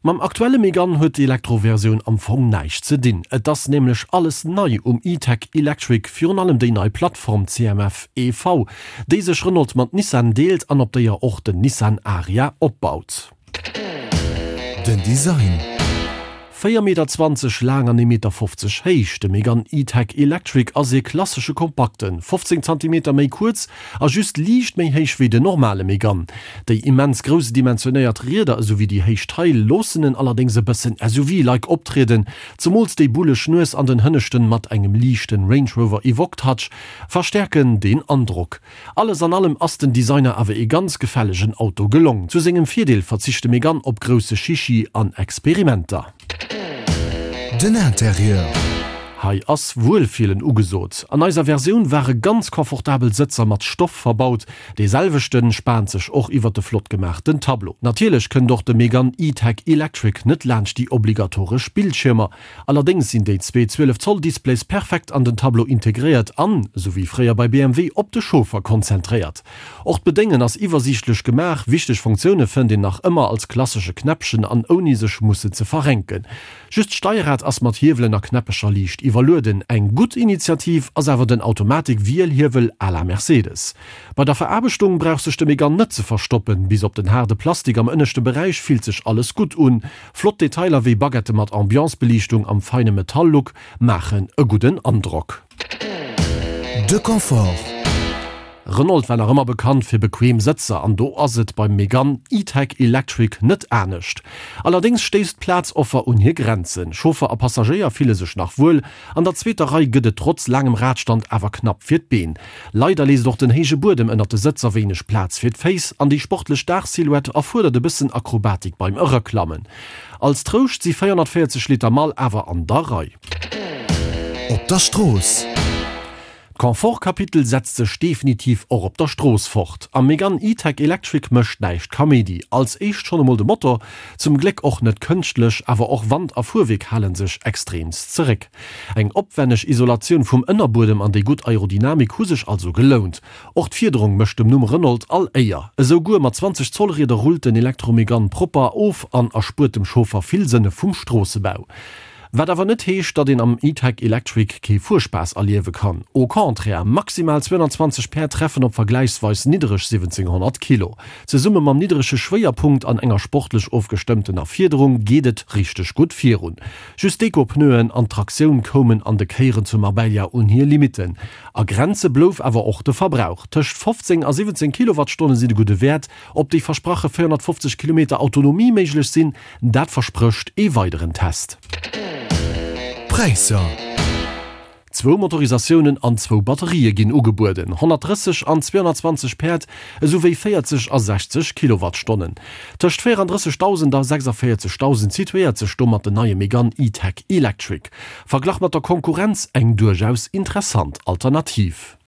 Mam aktuelle Megane huet d'Elektro-Versioun am Fong näischt ze dinn. Et ass nämlech alles nei um E-Tech Electric, virun allem déi nei Plattform CMF EV, déi sech Renault mat Nissan deelt an op déier och den Nissan Ariya opbaut. Den Design. 4 Meter 20 laang an 1 Meter 50 héich, de Megane E-Tech Electric ass ee klassesche Kompakten, 15 Zantimeter méi kuerz a just liicht méi héich wéi den normale Megane. Déi immens grouss dimensionéiert Rieder esou wéi déi héich Taille loossen en allerdéngs e bëssen SUV-like optrieden, zemools déi bulleg Nues an den Hënneschten mat engem liichten Range Rover Evoque Touch verstäerken deen Androck. Alles an allem ass den Designer awer ee ganz gefällegen Auto gelong. Zu sengem Virdeel verzicht de Megane op grousse Chichi an Experimenter. Den Interieur. Hei ass Wuelfillen ugesot. An eiser Versioun ware ganz confortabel Sëtzer mat Stoff verbaut. Dee selwechten spaant sech och iwwert de flott gemaachten Tableau. Natierlech kënnt och de Megane E-Tech Electric net laanscht déi obligatoresch Bildschiermer. Allerdéngs sinn déi zwee 12 Zoll Displays perfekt an den Tableau integréiert an, esou wéi fréier bei BMW, op de Chauffer konzentréiert. Och d'Bedéngen ass iwwersiichtlech gemaach, wichteg Funktioune fënnt een nach ëmmer als klassesche Knäppchen an ouni sech mussen ze verrenken. Just d'Steierrad ass mat Hiewelen a Knäppecher liicht iwwerlueden. Eng gutt Initiativ ass awer den Automatik-Wielhiewel à la Mercedes. Bei der Veraarbechtung brauch sech de Megane net ze verstoppen, bis op den haarde Plastik am ënneschte Beräich fillt sech alles gutt un. Flott Detailer wéi Baguette mat Ambiancebeliichtung am feine Metall-Look maachen e gudden Androck. De Confort. Renault war nach ëmmer bekannt fir bequem Sëtzer an do ass et beim Megane E-Tech Electric net anescht. Allerdéngs stéisst d'Plazoffer un hir Grenzen. Chauffer a Passagéier fille sech nach wuel, an der zweeter Rei gëtt et trotz laangem Radstand awer knapp fir d'Been. Leider léisst och den héije Buedem ënnert de Sëtzer wéineg Plaz fir d'Féiss an déi sportlech Daachsilhouette erfuerdert e bëssen Akrobatik beim Eraklammen. Als Trouscht si 440 Liter Mall awer an der Rei. Op der Strooss. D'Confort-Kapitel setzt sech definitiv och op der Strooss fort. Am Megane E-Tech Electric mécht näischt Kaméidi. Als éischt schonn emol de Motor, zum Gléck och net kënschtlech, awer och Wand a Fuerwierk hale sech extreemst zeréck. Eng opwänneg Isolatioun vum Ënnerbuedem an déi gutt Aerodynamik hu sech also gelount. Och d'Fiederung mécht dem Numm Renault all Éier. Esou guer mat 20 Zoll Rieder rullt den Elektro-Megane propper of an erspuert dem Chauffer vill Sënne vum Stroossebau. Wat awer net heescht, datt een am E-Tech Electric kee Fuerspaass erliewe kann. Au contraire, maximal 220 Päerd treffen op vergläichsweis niddereg 1700 Kilo. Zesumme mam nidderege Schwéierpunkt an enger sportlech ofgestëmmtener Fiederung geet et richteg gutt virun. Just d'Eco-Pneuen an d'Traktioun koumen an de Kéieren zu Marbella un hir Limitten. A Grenze blouf awer och de Verbrauch. Tëscht 15 a 17 Kilowattstonne sinn e gudde Wäert. Ob déi versprache 450 Kilometer Autonomie méiglech sinn, dat versprécht ee weideren Test. Präisser. Zwou Motorisatiounen an zwou Batterië ginn ugebueden, 130 an 220 Päerd, esou wéi 40 a 60 Kilowattstonnen. Tëscht 34.000 a 46.000 situéiert sech domat den neie Megane E-Tech Electric. Verglach mat der Konkurrenz eng duerchaus interessant Alternativ.